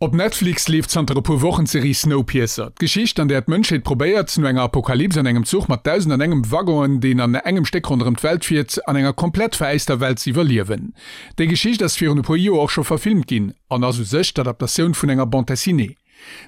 Op Netflix leeft zanter e puer Wochen d'Serie Snowpiercer. D'Geschicht, an där d'Mënschheet probéiert, no enger Apokalyps an engem Zuch mat 1001 Waggonen, deen an engem Stéck ronderëm d'Welt fiert, an enger komplett veräister Welt ze iwwerliewen. Déi Geschicht ass virun e puer Joer och scho verfilmt ginn an ass u sech d'Adaptatioun vun enger Bande dessinée.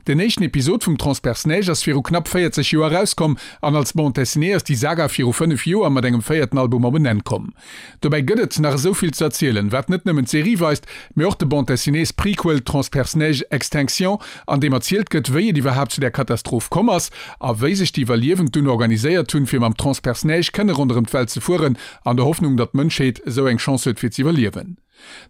Den éischten Episod vum Transperceneige ass viru knapp 40 Joer erauskomm an als Bande dessinée ass déi Saga viru 5 Joer mat engem véierten Album op en Enn komm. Dobäi gëtt et nach esou vill ze erzielen, wat net nëmmen d'Serie weist, mee och de Bande dessinées Prequel Transperceneige Extinction, an deem erzielt gëtt, wéi et iwwerhaapt zu där Katastroph komm ass a wéi sech déi Iwwerliewend dunn organiséiert hunn, fir mam Transperceneige kënne ronderëm d'Welt ze fueren, an der Hoffnung, datt d'Mënschheet esou eng Chance huet fir z'iwwerliewen.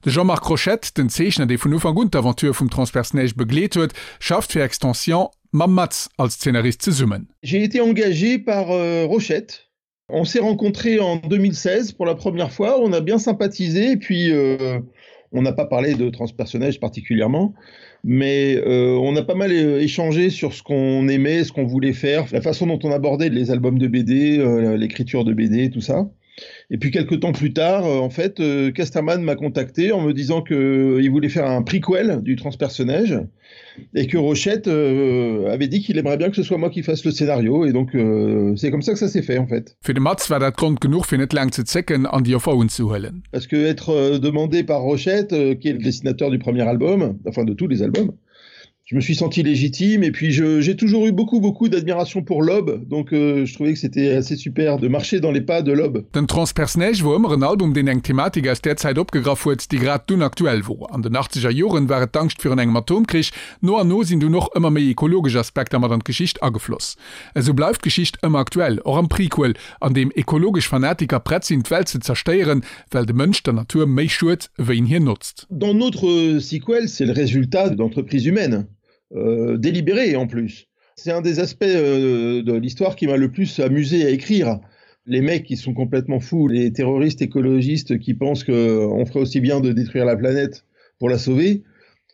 De Jean-Marc Rochette, den Zeechner, dee vun Ufank un d'Aventure vum Transperceneige begleet huet, schafft fir Extension mam Maz als Zeenarist zesummen. J'ai été engagé par Rochette. On s'est rencontrés en 2016 pour la première fois, on a bien sympathisé et puis euh, on n'a pas parlé de transpersonnage particulièrement, mais euh, on a pas mal euh, échangé sur ce qu'on aimait, ce qu'on voulait faire, la façon dont on abordait les albums de BD, euh, l'écriture de BD, tout ça. Et puis quelques temps plus tard, euh, en fait, euh, Casterman m'a contacté en me disant qu'il euh, voulait faire un prequel du transpersonnage et que Rochette euh, avait dit qu'il aimerait bien que ce soit moi qui fasse le scénario et donc euh, c'est comme ça que ça s'est fait en fait. Fir de Maz war dat Grond genuch fir net laang ze zécken an déi Offer unzehuelen. Parce que être euh, demandé par Rochette, euh, qui est le dessinateur du premier album, enfin de tous les albums, je me suis senti légitime et puis j'ai toujours eu beaucoup beaucoup d'admiration pour Lob donc euh, je trouvais que c'était assez super de marcher dans les pas de Lob. Den Transperceneige wor ëmmer en Album deen eng Thematik aus där Zäit opgegraff huet, déi grad dunn aktuell wor. An den achtzeger Joren war et d'Angscht virun engem Atomkrich, no an no sinn dunn och ëmmer méi ekologesch Aspekter mat an d'Geschicht agefloss. Esou bleift d'Geschicht ëmmer aktuell, och am Prequel, an deem ekologesch Fanatiker prett sinn d'Welt ze zerstéieren, well de Mënsch der Natur méi schued, wéi en hir notzt. Dans notre sequel, c'est le résultat d'entreprises humaines, euh, délibérées en plus. C'est un des aspects euh, de l'histoire qui m'a le plus amusé à écrire. Les mecs qui sont complètement fous, les terroristes écologistes qui pensent qu'on ferait aussi bien de détruire la planète pour la sauver.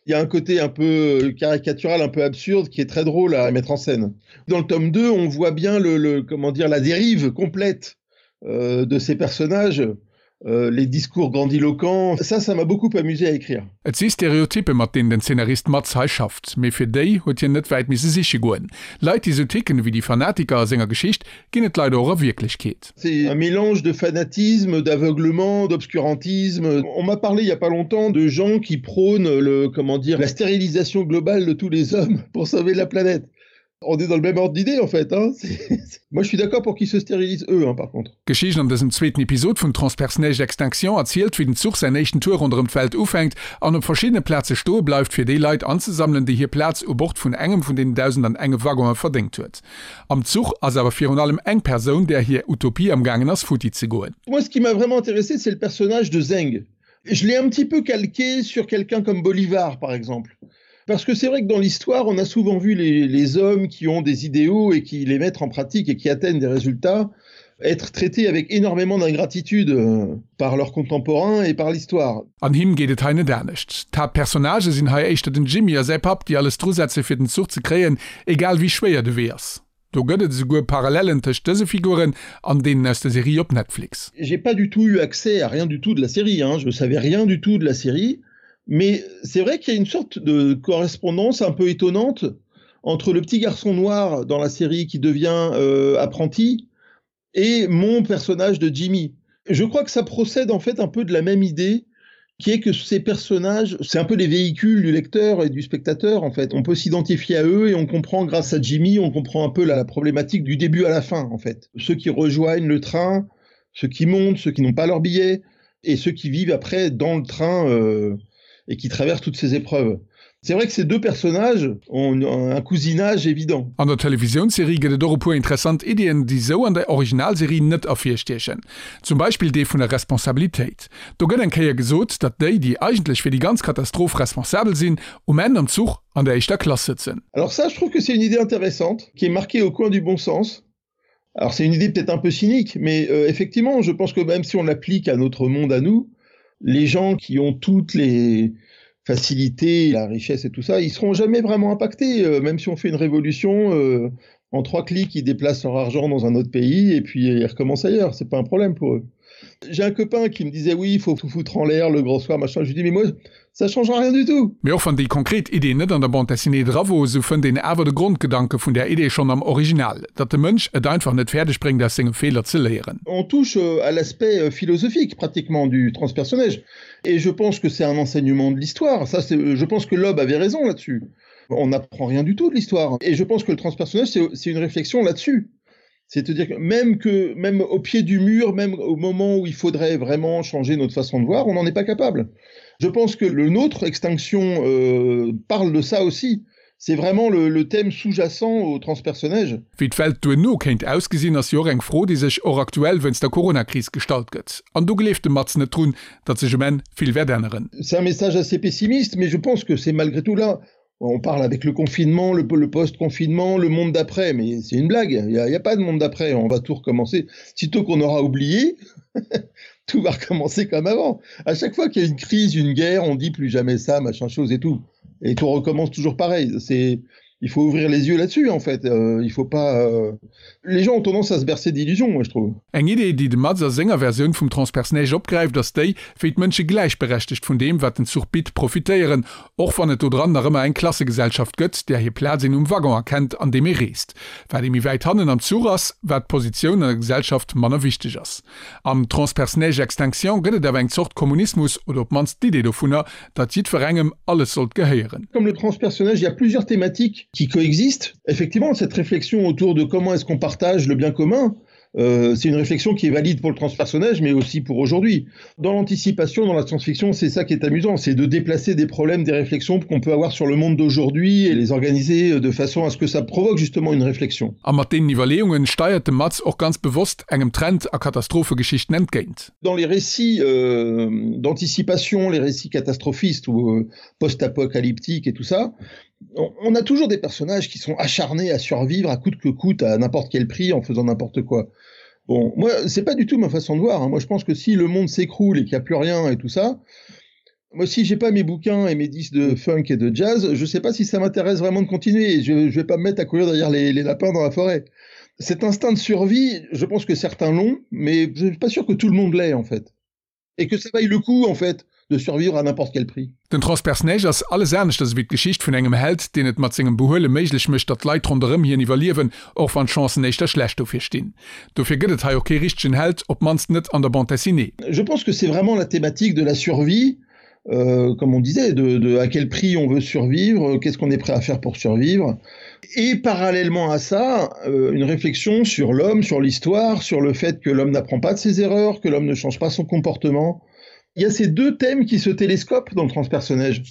Il y a un côté un peu caricatural, un peu absurde qui est très drôle à mettre en scène. Dans le tome 2, on voit bien le, le comment dire la dérive complète euh, de ces personnages, euh, les discours grandiloquents, ça ça m'a beaucoup amusé à écrire. Et si Stereotyppe mat deenen den Zeenarist Maz hei schafft, mee fir déi huet hien net wäit misse siche goen. Leit déi sou ticken ewéi déi Fanatiker a senger Geschicht ginn et leider och a Wierklechkeet. C'est un mélange de fanatisme, d'aveuglement, d'obscurantisme. On m'a parlé il y a pas longtemps de gens qui prônent le comment dire la stérilisation globale de tous les hommes pour sauver la planète. On est dans le même ordre d'idée en fait hein. Moi je suis d'accord pour qu'ils se stérilisent eux hein, par contre. D'Geschicht an dësem zweeten Episod vun Transperceneige Extinction erzielt, wéi den Zuch säin éischten Tour ronderëm d'Welt ufänkt an op verschiddene Plaze stoe bleift, fir déi Leit anzesammelen, déi hir Plaz u Bord vun engem vun deenen 1001 Waggonen verdéngt huet. Am Zuch ass awer virun allem eng Persoun, där hir Utopie am gaangen ass futti ze goen. Moi ce qui m'a vraiment intéressé c'est le personnage de Zeng. Je l'ai un petit peu calqué sur quelqu'un comme Bolivar par exemple. Parce que c'est vrai que dans l'histoire, on a souvent vu les, les hommes qui ont des idéaux et qui les mettent en pratique et qui atteignent des résultats être traités avec énormément d'ingratitude euh, par leurs contemporains et par l'histoire. An him geet et hei net anescht. D'Haaptpersonnagë sinn hei éischter den Jimmy a säi Papp, déi alles drusetze fir den Zuch ze kréien, egal wéi schwéier de Wee ass. Do gëtt et esouguer Parallellen tëscht dëse Figuren an deenen aus der Serie op Netflix. J'ai pas du tout eu accès à rien du tout de la série, hein. Je savais rien du tout de la série, mais c'est vrai qu'il y a une sorte de correspondance un peu étonnante entre le petit garçon noir dans la série qui devient euh, apprenti et mon personnage de Jimmy. Je crois que ça procède en fait un peu de la même idée qui est que ces personnages, c'est un peu les véhicules du lecteur et du spectateur en fait. On peut s'identifier à eux et on comprend grâce à Jimmy, on comprend un peu la, la problématique du début à la fin en fait. Ceux qui rejoignent le train, ceux qui montent, ceux qui n'ont pas leur billet et ceux qui vivent après dans le train euh, et qui traversent toutes ces épreuves. C'est vrai que ces deux personnages ont un cousinage évident. An der Televisiounsserie gëtt et och e puer interessant Iddien, déi sou an der Originalserie net ervirstiechen. Zum Beispill dee vun der Responsabilitéit. Do gëtt eng Kéier gesot, datt déi, déi eigentlech fir déi ganz Katastroph responsabel sinn, um Enn am Zuch an der éischter Klass sëtzen. Alors ça, je trouve que c'est une idée intéressante, qui est marquée au coin du bon sens. Alors c'est une idée peut-être un peu cynique, mais euh, effectivement, je pense que même si on l'applique à notre monde à nous, les gens qui ont toutes les facilités, la richesse et tout ça, ils seront jamais vraiment impactés, euh, même si on fait une révolution euh, en trois clics, ils déplacent leur argent dans un autre pays et puis ils recommencent ailleurs, c'est pas un problème pour eux. J'ai un copain qui me disait oui, il faut tout foutre en l'air le grand soir machin. Je lui dis mais moi ça changera rien du tout. Mee och wann déi konkret Idee net an der Bande dessinée dra wor, sou fënnt een awer de Grondgedanke vun där Idee schonn am Original, datt de Mënsch et einfach net fäerdeg bréngt aus senge Feeler ze léieren. On touche à l'aspect philosophique pratiquement du transpersonnage et je pense que c'est un enseignement de l'histoire, ça c'est, je pense que Loeb avait raison là-dessus. On n'apprend rien du tout de l'histoire et je pense que le transpersonnage c'est une réflexion là-dessus. C'est-à-dire que même que même au pied du mur, même au moment où il faudrait vraiment changer notre façon de voir, on n'en est pas capable. Je pense que le nôtre extinction euh, parle de ça aussi. C'est vraiment le, le thème sous-jacent au transpersonnage. Wéi d'Welt duerno kéint ausgesinn, ass jo och eng Fro, déi sech och aktuell wéinst der Coronakris gestallt gëtt. An do gleeft de Mats net drun, datt sech um Enn vill wäert änneren. C'est un message assez pessimiste, mais je pense que c'est malgré tout là on parle avec le confinement, le, le post-confinement, le monde d'après, mais c'est une blague, il n'y a, a pas de monde d'après, on va tout recommencer. Sitôt qu'on aura oublié, tout va recommencer comme avant. À chaque fois qu'il y a une crise, une guerre, on dit plus jamais ça, machin chose et tout. Et tout recommence toujours pareil. C'est il faut ouvrir les yeux là-dessus en fait. Euh, il faut pas euh... les gens ont tendance à se bercer d'illusions, moi je trouve. Eng Idee, déi de Mats a senger Versioun vum Transpersonnage opgräift, ass déi, wéi d'Mënsche gläichberechtegt vun deem, wat den Zuch bitt, profitéieren, och wann et do dran nach ëmmer eng Klassegesellschaft gëtt, där hir Plaz een um Waggon erkennt, an deem ee reest. Wat ee méi wäit hannen am Zuch ass, wat d'Positioun an der Gesellschaft manner wichteg ass. Am Transpersonnage Extinction gëtt et awer eng Zort Kommunismus, oder op d'mannst d'Idee dovunner, datt jiddwerengem alles sollt gehéieren. Comme le transpersonnage, il y a plusieurs thématiques qui coexistent. Effectivement, cette réflexion autour de comment est-ce qu'on partage le bien commun, euh, c'est une réflexion qui est valide pour le transpersonnage, mais aussi pour aujourd'hui. Dans l'anticipation, dans la science-fiction, c'est ça qui est amusant, c'est de déplacer des problèmes, des réflexions qu'on peut avoir sur le monde d'aujourd'hui et les organiser de façon à ce que ça provoque justement une réflexion. A mat deenen Iwwerleeungen steiert de Mats och ganz bewosst engem Trend a Katastrophegeschichten entgéint. Dans les récits euh, d'anticipation, les récits catastrophistes ou euh, post-apocalyptiques et tout ça, on, on a toujours des personnages qui sont acharnés à survivre à coûte que coûte, à n'importe quel prix, en faisant n'importe quoi. Bon, moi, c'est pas du tout ma façon de voir. Hein. Moi, je pense que si le monde s'écroule et qu'il n'y a plus rien et tout ça, moi, si j'ai pas mes bouquins et mes disques de funk et de jazz, je sais pas si ça m'intéresse vraiment de continuer. Je, je vais pas me mettre à courir derrière les, les lapins dans la forêt. Cet instinct de survie, je pense que certains l'ont, mais je suis pas sûr que tout le monde l'ait en fait. Et que ça vaille le coup en fait de survivre à n'importe quel prix. Den Transpersonnage ass alles aneschters ewéi d'Geschicht vun engem Held, deen et mat sengem Behuele méiglech mécht, datt d'Leit ronderëm hien iwwerliewen, och wann d'Chancen éischter schlecht dofir stinn. Dofir gëtt et hei och kee richtegen Held, op d'mannst net an der Bande dessinée. Je pense que c'est vraiment la thématique de la survie, euh, comme on disait, de, de à quel prix on veut survivre, qu'est-ce qu'on est prêt à faire pour survivre. Et parallèlement à ça, euh, une réflexion sur l'homme, sur l'histoire, sur le fait que l'homme n'apprend pas de ses erreurs, que l'homme ne change pas son comportement. Il y a ces deux thèmes qui se télescopent dans le transpersonnage.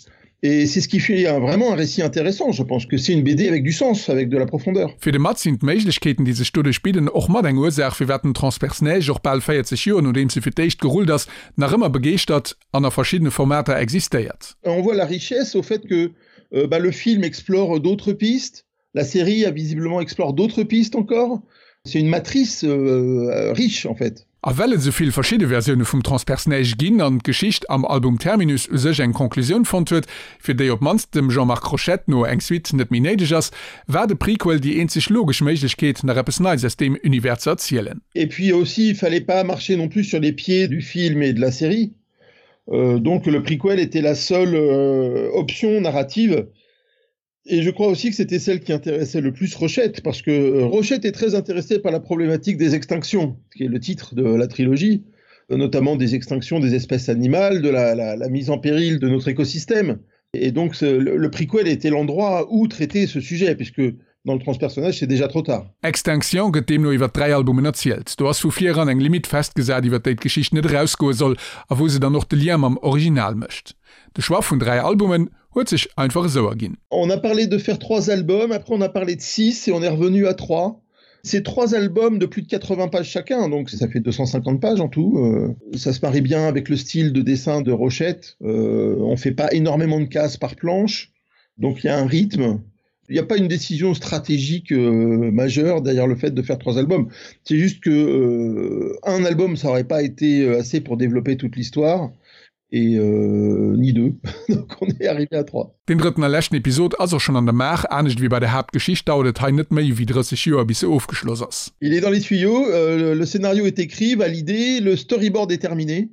Et c'est ce qui fait un, vraiment un récit intéressant. Je pense que c'est une BD avec du sens, avec de la profondeur. Fir de Mats sinn d'Méiglechkeeten, déi sech doduerch bidden, och mat eng Ursaach, firwat den Transpersonnage och bal 40 Joer nodeems e fir d'éischt gerullt ass, nach ëmmer begeeschtert an a verschiddene Formater existéiert. On voit la richesse au fait que euh, bah, le film explore d'autres pistes, la série a visiblement explore d'autres pistes encore. C'est une matrice euh, riche en fait. A well et esou vill verschidde Versioune vum Transpersonnage ginn an d'Geschicht am Album Terminus u sech eng Conclusioun fonnt huet, fir déi op d'mannst dem Jean-Marc Rochette no eng Suite net méi néideg ass, war de Prequel déi eenzeg logesch Méiglechkeet, nach eppes Neits aus deem Univers ze erzielen. Et puis aussi, il fallait pas marcher non plus sur les pieds du film et de la série. Euh, donc le prequel était la seule euh, option narrative. Et je crois aussi que c'était celle qui intéressait le plus Rochette, parce que euh, Rochette est très intéressée par la problématique des extinctions, qui est le titre de la trilogie, euh, notamment des extinctions des espèces animales, de la, la, la mise en péril de notre écosystème. Et donc ce, le, le prequel était l'endroit où traiter ce sujet, puisque dans le transpersonnage c'est déjà trop tard. Extinction gëtt deemno iwwer 3 Albumen erzielt. Do ass vu vir eran eng Limite festgesat iwwer déi d'Geschicht net erausgoe soll a wou se dann och de Lien mam Original mécht. De Choix vun 3 Albumen huet sech einfach esou erginn. On a parlé de faire 3 albums, après on a parlé de 6 et on est revenu à 3. C'est trois albums de plus de 80 pages chacun, donc ça fait 250 pages en tout. Euh, ça se marie bien avec le style de dessin de Rochette. Euh, on fait pas énormément de cases par planche, donc il y a un rythme. Il n'y a pas une décision stratégique euh, majeure derrière le fait de faire trois albums. C'est juste que euh, un album, ça aurait pas été euh, assez pour développer toute l'histoire. Et euh, ni deux. Donc on est arrivé à trois. Deen drëtten a leschten Episod ass och schonn an der Maach. Anescht ewéi bei der Haaptgeschicht dauert et hei net méi ewéi 30 Joer bis se ofgeschloss ass. Il est dans les tuyaux, euh, le scénario est écrit, validé, le storyboard est terminé.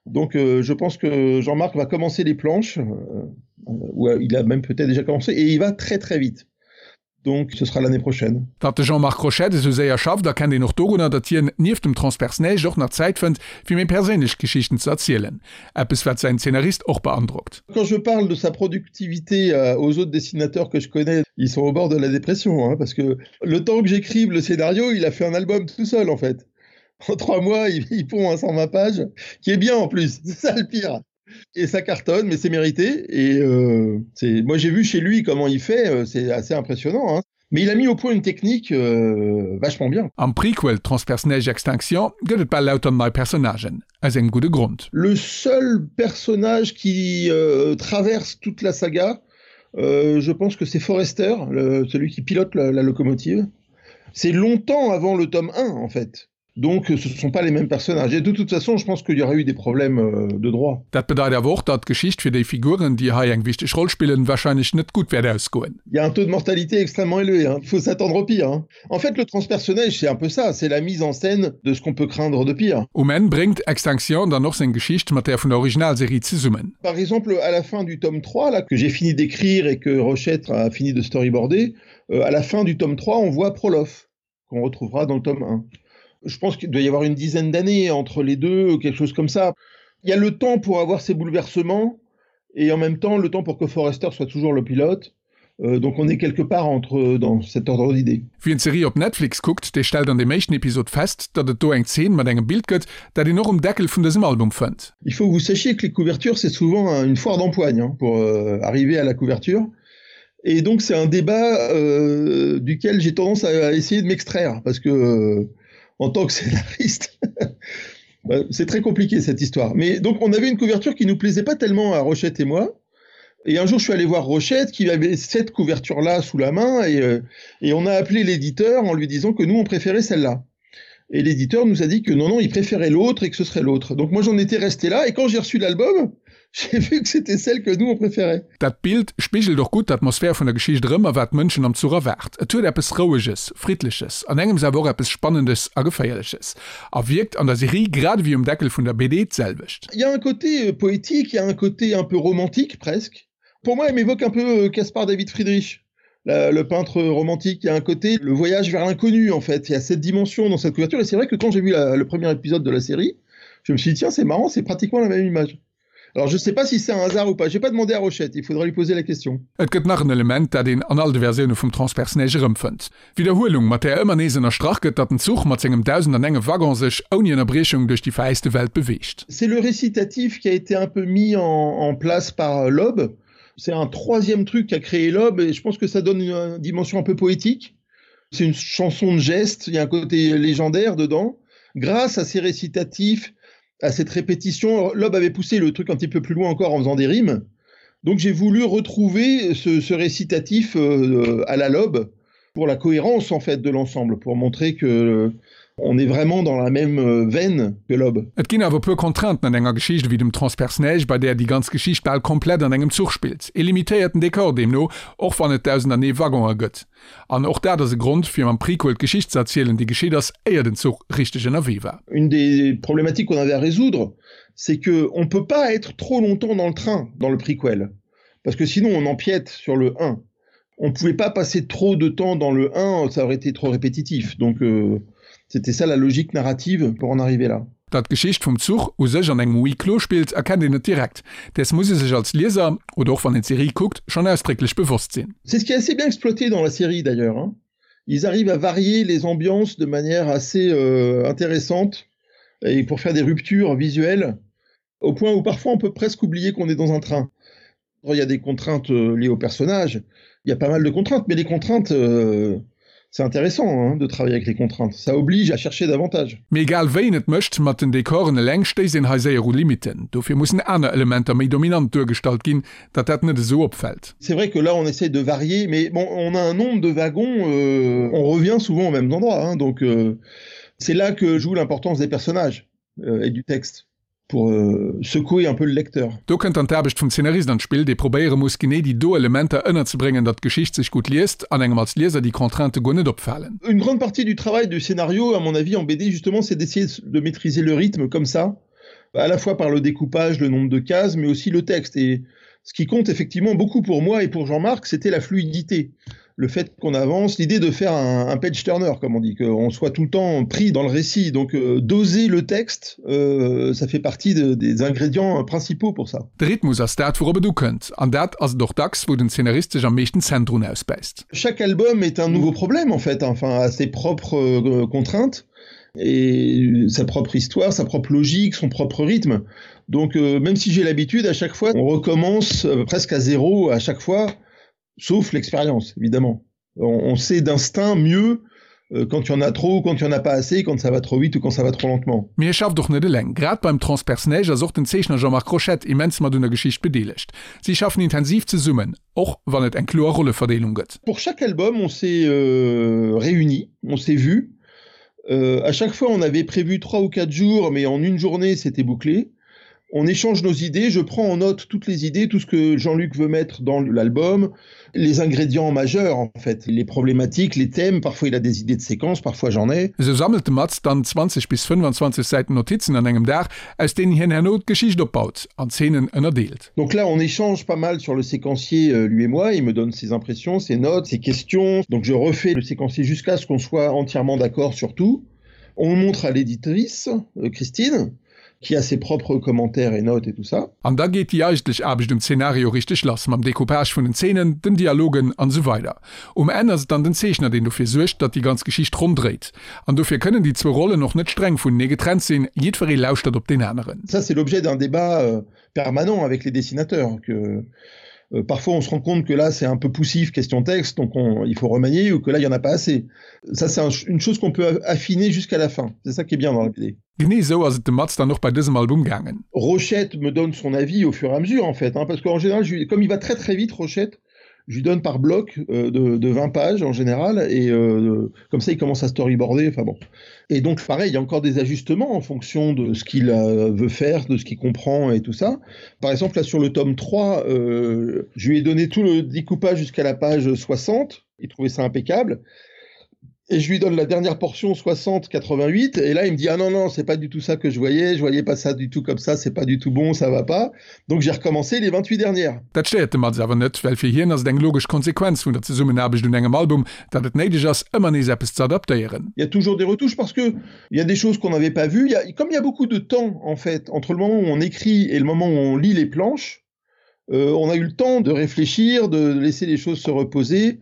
Donc euh, je pense que Jean-Marc va commencer les planches, euh, ou euh, il a même peut-être déjà commencé, et il va très très vite. Donc ce sera l'année prochaine. Datt de Jean-Marc Rochette esou séier schafft, erkennt een och dorunner, datt hien nieft dem Transperce-Neige och nach Zäit fënnt, fir méi perséinlech Geschichten ze erzielen. Eppes, wat säin Zeenarist och beandrockt. Quand je parle de sa productivité aux autres dessinateurs que je connais, ils sont au bord de la dépression, hein, parce que le temps que j'écrive le scénario, il a fait un album tout seul en fait. En 3 mois, il, il pond un 120 pages, qui est bien en plus, c'est ça le pire. Et ça cartonne, mais c'est mérité. Et euh, c'est, moi j'ai vu chez lui comment il fait, euh, c'est assez impressionnant. Hein. Mais il a mis au point une technique euh, vachement bien. Am Prequel Transperce-Neige Extinction gëtt et bal lauter nei Personnagen, aus engem gudde Grond. Le seul personnage qui euh, traverse toute la saga, euh, je pense que c'est Forester, le, celui qui pilote la, la locomotive. C'est longtemps avant le tome 1 en fait. Donc ce ne sont pas les mêmes personnages. Et de toute façon, je pense qu'il y aurait eu des problèmes euh, de droit. Dat bedeit awer och, datt d'Geschicht fir déi Figuren, déi hei eng wichteg Roll spillen, warscheinlech net gutt wäert ausgoen. Il y a un taux de mortalité extrêmement élevé, hein. Il faut s'attendre au pire, hein. En fait, le transpersonnage, c'est un peu ça, c'est la mise en scène de ce qu'on peut craindre de pire. Um Enn bréngt Extinction dann och seng Geschicht mat där vun der Originalserie zesummen. Par exemple, à la fin du tome 3, là, que j'ai fini d'écrire et que Rochette a fini de storyboarder, euh, à la fin du tome 3, on voit Prolof, qu'on retrouvera dans le tome 1. Je pense qu'il doit y avoir une dizaine d'années entre les deux, quelque chose comme ça. Il y a le temps pour avoir ces bouleversements et en même temps le temps pour que Forester soit toujours le pilote. Euh, donc on est quelque part entre dans cet ordre d'idée. Wien d'Serie op Netflix kuckt, dee stellt an deem éischten Episod fest, datt et do eng Zeen mat engem Bild gëtt, dat een och um Deckel vun dësem Album fënnt. Il faut que vous sachiez que les couvertures c'est souvent une foire d'empoigne hein, pour euh, arriver à la couverture. Et donc c'est un débat euh, duquel j'ai tendance à, à essayer de m'extraire parce que euh, en tant que scénariste c'est très compliqué cette histoire. Mais donc on avait une couverture qui nous plaisait pas tellement à Rochette et moi. Et un jour je suis allé voir Rochette qui avait cette couverture là sous la main et, euh, et on a appelé l'éditeur en lui disant que nous on préférait celle-là. Et l'éditeur nous a dit que non non il préférait l'autre et que ce serait l'autre. Donc moi j'en étais resté là et quand j'ai reçu l'album, j'ai vu que c'était celle que nous on préférait. Dat Bild spigelt och gutt d'Atmosphär vun der Geschicht erëm a wat d'Mënschen am Zuch erwaart. Et huet eppes Roueges, Friddleches, an engems awer och eppes Spannendes a Geféierleches a wierkt an der Serie grad ewéi um Deckel vun der BD d'selwecht. Il y a un côté poétique, il y a un côté un peu romantique presque. Pour moi, elle m'évoque un peu Caspar David Friedrich, la, le peintre romantique. Il y a un côté, le voyage vers l'inconnu en fait. Il y a cette dimension dans cette couverture et c'est vrai que quand j'ai vu la, le premier épisode de la série, je me suis dit tiens, c'est marrant, c'est pratiquement la même image. Alors je sais pas si c'est un hasard ou pas. J'ai pas demandé à Rochette, il faudra lui poser la question. Et gëtt nach en Element, dat een an all de Versioune vum Transperce-Neige erëmfënnt, D'Widderhuelung, mat där ëmmer nees ënnerstrach gëtt, datt den Zuch mat sengem 1001 Waggon sech ouni Ënnerbriechung duerch déi veräiste Welt beweegt. C'est le récitatif qui a été un peu mis en, en place par Loeb. C'est un troisième truc qu'a créé Loeb et je pense que ça donne une, une dimension un peu poétique. C'est une chanson de geste, il y a un côté légendaire dedans. Grâce à ces récitatifs, à cette répétition, Loeb avait poussé le truc un petit peu plus loin encore en faisant des rimes. Donc j'ai voulu retrouver ce, ce récitatif euh, à la Loeb pour la cohérence en fait de l'ensemble, pour montrer que euh, on est vraiment dans la même euh, veine que Loeb. Et ginn awer e puer Contrainten an enger Geschicht ewéi dem Transperce-Neige, bei där déi ganz Geschicht bal komplett an engem Zuch spillt. E limitéierten Dekor deemno, och wann et 1001 Waggoner gëtt. An och dat ass e Grond, fir mam Prequel d'Geschicht ze erzielen, déi geschitt ass, éier den Zuch richteg ënnerwee war. Une des problématiques qu'on avait à résoudre, c'est que on peut pas être trop longtemps dans le train dans le prequel, parce que sinon on empiète sur le 1. On pouvait pas passer trop de temps dans le 1, ça aurait été trop répétitif. Donc euh, c'était ça la logique narrative pour en arriver là. Datt d'Geschicht vum Zuch u sech an engem Huis clos spillt, erkennt een net direkt. Däers muss ee sech als Lieser, oder och wann een d'Serie kuckt, schonn ausdrécklech bewosst sinn. C'est ce qui est assez bien exploité dans la série d'ailleurs, hein. Ils arrivent à varier les ambiances de manière assez euh, intéressante et pour faire des ruptures visuelles, au point où parfois on peut presque oublier qu'on est dans un train. Il y a des contraintes euh, liées au personnage, il y a pas mal de contraintes, mais les contraintes, euh, c'est intéressant hein, de travailler avec les contraintes. Ça oblige à chercher davantage. Mee egal wéi een et mécht, mat den Dekoren eleng stéisst een hei séier u Limitten. Dofir mussen aner Elementer méi dominant duergestallt ginn, datt dat net esou opfält. C'est vrai que là on essaie de varier, mais bon on a un nombre de wagons, euh, on revient souvent au même endroit, hein, donc euh, c'est là que joue l'importance des personnages euh, et du texte. Pour euh, secouer un peu le lecteur. Do kënnt dann d'Aarbecht vum Zeenarist an d'Spill, dee probéiere muss, genee déi do Elementer ënnerzebréngen, datt d'Geschicht sech gutt liest an engem als Lieser déi Contraintë guer net opfalen. Une grande partie du travail du scénario, à mon avis, en BD, justement, c'est d'essayer de maîtriser le rythme comme ça, à la fois par le découpage, le nombre de cases, mais aussi le texte. Et ce qui compte effectivement beaucoup pour moi et pour Jean-Marc, c'était la fluidité. Le fait qu'on avance, l'idée de faire un, un page turner, comme on dit, qu'on soit tout le temps pris dans le récit. Donc euh, doser le texte, euh, ça fait partie de, des ingrédients principaux pour ça. De Rhythmus ass dat, wourop et ukënnt, an dat ass et och dacks, wou den Zeenarist sech am meeschten d'Zänn drun ausbäisst. Chaque album est un nouveau problème en fait, enfin a ses propres euh, contraintes et sa propre histoire, sa propre logique, son propre rythme. Donc euh, même si j'ai l'habitude, à chaque fois, on recommence euh, presque à zéro à chaque fois, sauf l'expérience, évidemment. On, on sait d'instinct mieux euh, quand il y en a trop, quand il y en a pas assez, quand ça va trop vite ou quand ça va trop lentement. Mee hie schafft och net eleng. Grad beim Transperceneige ass och den Zeechner Jean-Marc Rochette immens mat un der Geschicht bedeelegt. Si schaffen intensiv zesummen, och wann et eng kloer Rolleverdeelung gëtt. Pour chaque album, on s'est euh, réunis, on s'est vus. Euh, à chaque fois, on avait prévu trois ou quatre jours, mais en une journée, c'était bouclé. On échange nos idées, je prends en note toutes les idées, tout ce que Jean-Luc veut mettre dans l'album, les ingrédients majeurs en fait, les problématiques, les thèmes, parfois il a des idées de séquences, parfois j'en ai. Esou sammelt de Maz dann 20 bis 25 Säiten Notizen an engem Dag, aus deenen hien herno d'Geschicht opbaut an d'Zeenen ënnerdeelt. Donc là on échange pas mal sur le séquencier euh, lui et moi, il me donne ses impressions, ses notes, ses questions. Donc je refais le séquencier jusqu'à ce qu'on soit entièrement d'accord sur tout. On le montre à l'éditrice, euh, Christine, qui a ses propres commentaires et notes et tout ça. An da geet déi eigentlech Aarbecht um Zenario richteg lass, mam Decoupage vun den Zeenen, den Dialogen an esou weider. Um Enn ass et dann den Zeechner, deen dofir suergt, datt déi ganz Geschicht ronn dréit. An dofir kënnen déi zwou Rollen och net streng vunenee getrennt sinn, jiddweree lauschtert op deen aneren. Ça c'est l'objet d'un débat euh, permanent avec les dessinateurs que euh, parfois on se rend compte que là c'est un peu poussif question texte donc on, il faut remanier ou que là il y en a pas assez. Ça c'est un, une chose qu'on peut affiner jusqu'à la fin. C'est ça qui est bien dans la BD. Genee esou ass et dem Maz dann och bei dësem Album gaangen. Rochette me donne son avis au fur et à mesure en fait hein, parce qu'en général je, comme il va très très vite Rochette, je lui donne par bloc euh, de, de 20 pages en général et euh, comme ça il commence à storyboarder enfin bon et donc pareil il y a encore des ajustements en fonction de ce qu'il euh, veut faire de ce qu'il comprend et tout ça par exemple là sur le tome 3 euh, je lui ai donné tout le découpage jusqu'à la page 60 il trouvait ça impeccable et je lui donne la dernière portion 60 88 et là il me dit ah non non c'est pas du tout ça que je voyais je voyais pas ça du tout comme ça c'est pas du tout bon ça va pas donc j'ai recommencé les 28 dernières. Dat stéiert de Maz awer net, well fir hien ass et eng logesch Konsequenz vun der Zesummenaarbecht un engem Album, datt et néideg ass ëmmer nees eppes ze adaptéieren. Il y a toujours des retouches parce que il y a des choses qu'on n'avait pas vues, il y a, comme il y a beaucoup de temps en fait entre le moment où on écrit et le moment où on lit les planches, euh, on a eu le temps de réfléchir, de laisser les choses se reposer.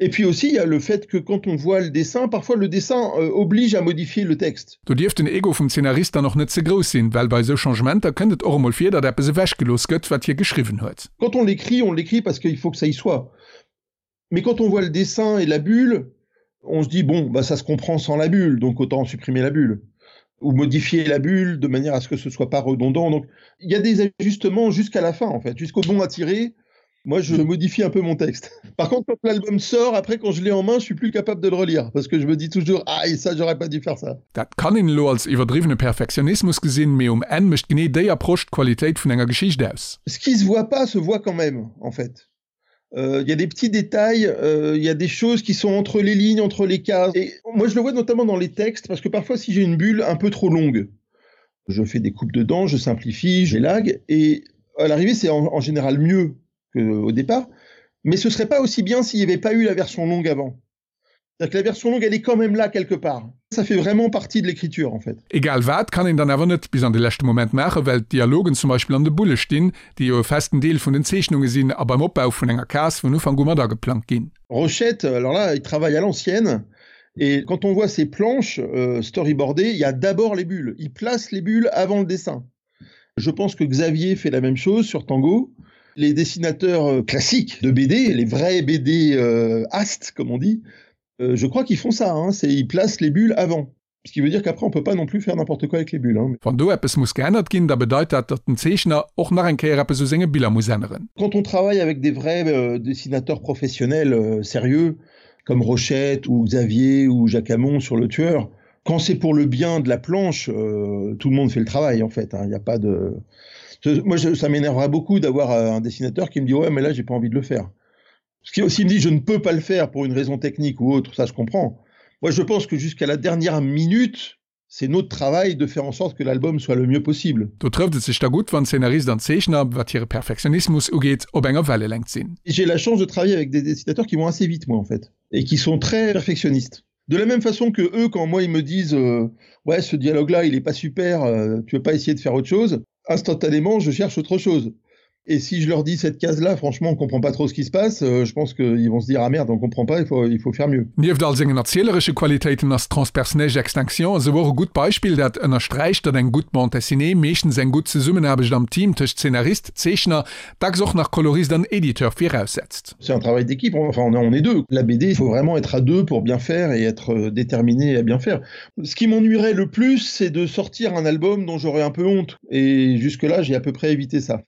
Et puis aussi il y a le fait que quand on voit le dessin, parfois le dessin euh, oblige à modifier le texte. Do dierf den Ego vum Zeenarist dann och net ze grouss sinn, well bei esou Changementer kënnt et och emol vir, datt eppes ewechgelooss gëtt, wat hie geschriwwen huet. Quand on l'écrit, on l'écrit parce qu'il faut que ça y soit. Mais quand on voit le dessin et la bulle, on se dit bon, bah ça se comprend sans la bulle, donc autant supprimer la bulle ou modifier la bulle de manière à ce que ce soit pas redondant. Donc il y a des ajustements jusqu'à la fin en fait, jusqu'au bon à tirer. Moi, je modifie un peu mon texte. Par contre, quand l'album sort, après, quand je l'ai en main, je suis plus capable de le relire parce que je me dis toujours ah, et ça, j'aurais pas dû faire ça. Dat kann een elo als iwwerdriwwene Perfektionismus gesinn, mee um Enn mécht genee déi Approche d'Qualitéit vun enger Geschicht aus. Ce qui se voit pas se voit quand même, en fait. Euh, il y a des petits détails, euh, il y a des choses qui sont entre les lignes, entre les cases. Et moi, je le vois notamment dans les textes, parce que parfois, si j'ai une bulle un peu trop longue, je fais des coupes dedans, je simplifie, j'élague, et à l'arrivée, c'est en, en général mieux qu'au départ. Mais ce serait pas aussi bien s'il n'y avait pas eu la version longue avant. C'est-à-dire que la version longue, elle est quand même là quelque part. Ça fait vraiment partie de l'écriture en fait. Egal wat, kann een dann awer net bis an de leschte Moment maachen, well d'Dialogen zum Beispill an de Bulle stinn, déi jo e festen Deel vun den Zeechnunge sinn a beim Opbau vun enger Case vun Ufank u mat ageplangt ginn. Rochette, alors là, il travaille à l'ancienne et quand on voit ses planches euh, storyboardées, il y a d'abord les bulles. Il place les bulles avant le dessin. Je pense que Xavier fait la même chose sur Tango. Les dessinateurs euh, classiques de BD, les vrais BD euh, ast, comme on dit, euh, je crois qu'ils font ça, hein, c'est ils placent les bulles avant. Ce qui veut dire qu'après on peut pas non plus faire n'importe quoi avec les bulles. Hein. Wann do eppes muss geännert ginn, da bedeit dat, datt den Zeechner och nach eng Kéier eppes u senge Biller muss änneren. Quand on travaille avec des vrais euh, dessinateurs professionnels euh, sérieux, comme Rochette ou Xavier ou Jacques Hamon sur le tueur, Quand c'est pour le bien de la planche, euh, tout le monde fait le travail en fait. Il n'y a pas de. Moi, je, ça m'énerverait beaucoup d'avoir euh, un dessinateur qui me dit ouais, mais là, j'ai pas envie de le faire. Ce qui aussi me dit je ne peux pas le faire pour une raison technique ou autre, ça je comprends. Moi, je pense que jusqu'à la dernière minute, c'est notre travail de faire en sorte que l'album soit le mieux possible. Do trëfft et sech da gutt, wann Zeenarist an Zeechner, wat hire Perfektionismus ugeet, op enger Wellelängt sinn. J'ai la chance de travailler avec des dessinateurs qui vont assez vite moi en fait et qui sont très perfectionnistes. De la même façon que eux quand moi ils me disent euh, ouais ce dialogue là il est pas super, euh, tu veux pas essayer de faire autre chose, instantanément je cherche autre chose. Et si je leur dis cette case là franchement on comprend pas trop ce qui se passe, euh, je pense qu'ils vont se dire ah merde on comprend pas il faut, il faut faire mieux. Nieft all sengen erzieleresche Qualitéiten ass Transperceneige Extinction esou och e gutt Beispill, dat ënnersträicht, datt eng gutt Bande dessinée meeschtens eng gutt Zesummenaarbecht am Team tëscht Zeenarist, Zeechner, dacks och nach Kolorist an Editeur viraussetzt. C'est un travail d'équipe, enfin on est, on est deux. La BD, il faut vraiment être à deux pour bien faire et être euh, déterminé à bien faire. Ce qui m'ennuierait le plus, c'est de sortir un album dont j'aurais un peu honte. Et jusque-là, j'ai à peu près évité ça.